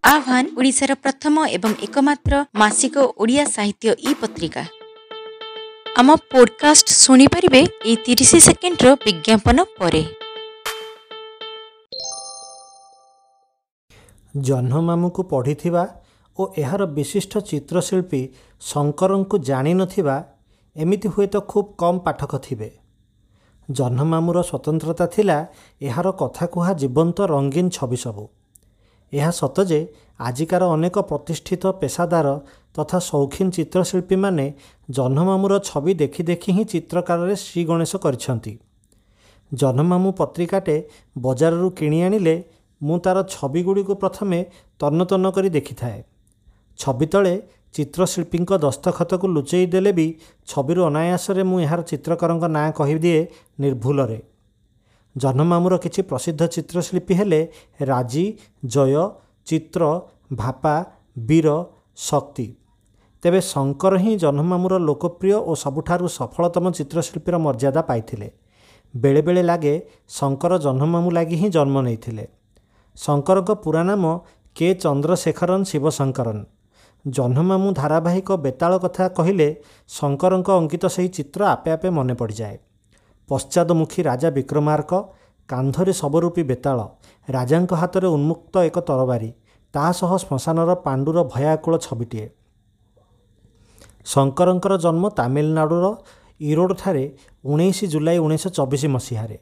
ଆହ୍ୱାନ ଓଡ଼ିଶାର ପ୍ରଥମ ଏବଂ ଏକମାତ୍ର ମାସିକ ଓଡ଼ିଆ ସାହିତ୍ୟ ଇ ପତ୍ରିକା। ଆମ ପୋଡକାଷ୍ଟ ଶୁଣିପାରିବେ ଏଇ 30 ସେକେଣ୍ଡର ବିଜ୍ଞାପନ ପରେ। ଜହ୍ନମାମୁଁକୁ ପଢ଼ିଥିବା ଓ ଏହାର ବିଶିଷ୍ଟ ଚିତ୍ରଶିଳ୍ପୀ ଶଙ୍କରଙ୍କୁ ଜାଣିନଥିବା ଏମିତି ହୁଏତ ଖୁବ୍ କମ୍ ପାଠକ ଥିବେ। ଜହ୍ନମାମୁଁର ସ୍ୱତନ୍ତ୍ରତା ଥିଲା ଏହାର କଥାକୁହା ଜୀବନ୍ତ ରଙ୍ଗୀନ ଛବି ସବୁ। ଏହା ସତ ଯେ ଆଜିକାର ଅନେକ ପ୍ରତିଷ୍ଠିତ ପେସାଦାର ତଥା ସୌଖିନ ଚିତ୍ରଶିଳ୍ପୀମାନେ ଜହ୍ନମାମୁଁର ଛବି ଦେଖି ଦେଖି ହିଁ ଚିତ୍ରକାରରେ ଶ୍ରୀଗଣେଶ କରିଛନ୍ତି। ଜହ୍ନମାମୁଁ ପତ୍ରିକାଟେ ବଜାରରୁ କିଣି ଆଣିଲେ ମୁଁ ତା'ର ଛବିଗୁଡ଼ିକୁ ପ୍ରଥମେ ତନ୍ନ ତନ୍ନ କରି ଦେଖିଥାଏ। ଛବି ତଳେ ଚିତ୍ରଶିଳ୍ପୀଙ୍କ ଦସ୍ତଖତକୁ ଲୁଚେଇ ଦେଲେ ବି ଛବିରୁ ଅନାୟାସରେ ମୁଁ ଏହାର ଚିତ୍ରକରଙ୍କ ନାଁ କହିଦିଏ ନିର୍ଭୁଲରେ। ଜହ୍ନମାମୁଁର କିଛି ପ୍ରସିଦ୍ଧ ଚିତ୍ରଶିଳ୍ପୀ ହେଲେ ରାଜୀ, ଜୟ, ଚିତ୍ର, ଭାପା, ବୀର, ଶକ୍ତି। ତେବେ ଶଙ୍କର ହିଁ ଜହ୍ନମାମୁଁର ଲୋକପ୍ରିୟ ଓ ସବୁଠାରୁ ସଫଳତମ ଚିତ୍ରଶିଳ୍ପୀର ମର୍ଯ୍ୟାଦା ପାଇଥିଲେ। ବେଳେବେଳେ ଲାଗେ ଶଙ୍କର ଜହ୍ନମାମୁଁ ଲାଗି ହିଁ ଜନ୍ମ ନେଇଥିଲେ। ଶଙ୍କରଙ୍କ ପୁରା ନାମ କେ ଚନ୍ଦ୍ରଶେଖରନ୍ ଶିବଶଙ୍କରନ୍। ଜହ୍ନମାମୁଁ ଧାରାବାହିକ ବେତାଳ କଥା କହିଲେ ଶଙ୍କରଙ୍କ ଅଙ୍କିତ ସେହି ଚିତ୍ର ଆପେ ଆପେ ମନେ ପଡ଼ିଯାଏ। ପଶ୍ଚାଦମୁଖୀ ରାଜା ବିକ୍ରମାର୍କ, କାନ୍ଧରେ ଶବରୂପୀ ବେତାଳ, ରାଜାଙ୍କ ହାତରେ ଉନ୍ମୁକ୍ତ ଏକ ତରବାରୀ, ତା ସହ ଶ୍ମଶାନର ପାଣ୍ଡୁର ଭୟାକୁଳ ଛବିଟିଏ। ଶଙ୍କରଙ୍କର ଜନ୍ମ ତାମିଲନାଡ଼ୁର ଇରୋଡ଼ଠାରେ 19 ଜୁଲାଇ 1924 ମସିହାରେ।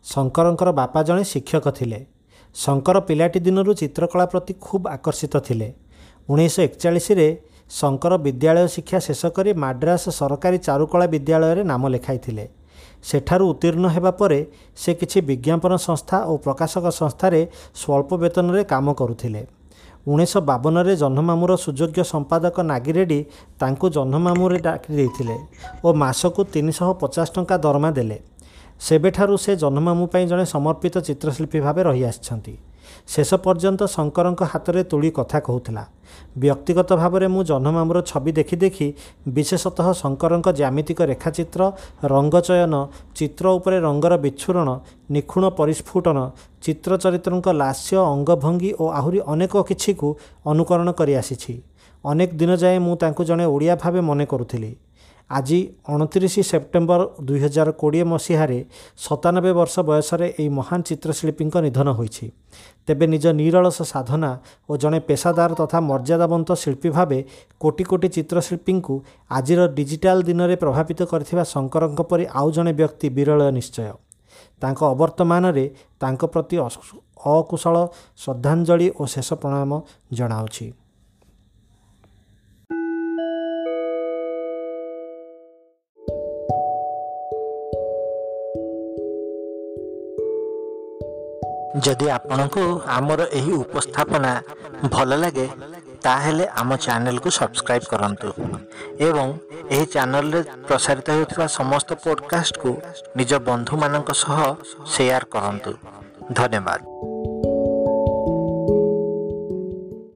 ଶଙ୍କରଙ୍କର ବାପା ଜଣେ ଶିକ୍ଷକ ଥିଲେ। ଶଙ୍କର ପିଲାଟି ଦିନରୁ ଚିତ୍ରକଳା ପ୍ରତି ଖୁବ୍ ଆକର୍ଷିତ ଥିଲେ। 1941ରେ ଶଙ୍କର ବିଦ୍ୟାଳୟ ଶିକ୍ଷା ଶେଷ କରି ମାଡ୍ରାସ ସରକାରୀ ଚାରୁକଳା ବିଦ୍ୟାଳୟରେ ନାମ ଲେଖାଇଥିଲେ। ସେଠାରୁ ଉତ୍ତୀର୍ଣ୍ଣ ହେବା ପରେ ସେ କିଛି ବିଜ୍ଞାପନ ସଂସ୍ଥା ଓ ପ୍ରକାଶକ ସଂସ୍ଥାରେ ସ୍ୱଳ୍ପ ବେତନରେ କାମ କରୁଥିଲେ। 1952ରେ ଜହ୍ନମାମୁଁର ସୁଯୋଗ୍ୟ ସମ୍ପାଦକ ନାଗିରେଡ୍ଡି ତାଙ୍କୁ ଜହ୍ନମାମୁଁରେ ଡାକି ଦେଇଥିଲେ ଓ ମାସକୁ 350 ଟଙ୍କା ଦରମା ଦେଲେ। ସେବେଠାରୁ ସେ ଜହ୍ନମାମୁଁ ପାଇଁ ଜଣେ ସମର୍ପିତ ଚିତ୍ରଶିଳ୍ପୀ ଭାବେ ରହିଆସିଛନ୍ତି। ଶେଷ ପର୍ଯ୍ୟନ୍ତ ଶଙ୍କରଙ୍କ ହାତରେ ତୂଳୀ କଥା କହୁଥିଲା। ବ୍ୟକ୍ତିଗତ ଭାବରେ ମୁଁ ଜହ୍ନମାମୁଁର ଛବି ଦେଖି ଦେଖି ବିଶେଷତଃ ଶଙ୍କରଙ୍କ ଜ୍ୟାମିତିକ ରେଖାଚିତ୍ର, ରଙ୍ଗଚୟନ, ଚିତ୍ର ଉପରେ ରଙ୍ଗର ବିଚ୍ଛୁରଣ, ନିଖୁଣ ପରିସ୍ଫୁଟନ, ଚିତ୍ର ଚରିତ୍ରଙ୍କ ଲାସ୍ୟ ଅଙ୍ଗଭଙ୍ଗୀ ଓ ଆହୁରି ଅନେକ କିଛିକୁ ଅନୁକରଣ କରିଆସିଛି। ଅନେକ ଦିନ ଯାଏଁ ମୁଁ ତାଙ୍କୁ ଜଣେ ଓଡ଼ିଆ ଭାବେ ମନେ କରୁଥିଲି। ଆଜି 29 ସେପ୍ଟେମ୍ବର 2020 ମସିହାରେ 97 ବର୍ଷ ବୟସରେ ଏହି ମହାନ ଚିତ୍ରଶିଳ୍ପୀଙ୍କ ନିଧନ ହୋଇଛି। ତେବେ ନିଜ ନିରଳସ ସାଧନା ଓ ଜଣେ ପେସାଦାର ତଥା ମର୍ଯ୍ୟାଦାବନ୍ତ ଶିଳ୍ପୀ ଭାବେ କୋଟି କୋଟି ଚିତ୍ରଶିଳ୍ପୀଙ୍କୁ ଆଜିର ଡିଜିଟାଲ ଦିନରେ ପ୍ରଭାବିତ କରିଥିବା ଶଙ୍କରଙ୍କ ପରି ଆଉ ଜଣେ ବ୍ୟକ୍ତି ବିରଳ ନିଶ୍ଚୟ। ତାଙ୍କ ଅବର୍ତ୍ତମାନରେ ତାଙ୍କ ପ୍ରତି ଅକୁଶଳ ଶ୍ରଦ୍ଧାଞ୍ଜଳି ଓ ଶେଷ ପ୍ରଣାମ ଜଣାଉଛି। ଯଦି ଆପଣଙ୍କୁ ଆମର ଏହି ଉପସ୍ଥାପନା ଭଲ ଲାଗେ, ତାହେଲେ ଆମ ଚ୍ୟାନେଲକୁ ସବସ୍କ୍ରାଇବ୍ କରନ୍ତୁ ଏବଂ ଏହି ଚ୍ୟାନେଲରେ ପ୍ରସାରିତ ହେଉଥିବା ସମସ୍ତ ପଡ଼କାଷ୍ଟକୁ ନିଜ ବନ୍ଧୁମାନଙ୍କ ସହ ସେୟାର କରନ୍ତୁ। ଧନ୍ୟବାଦ।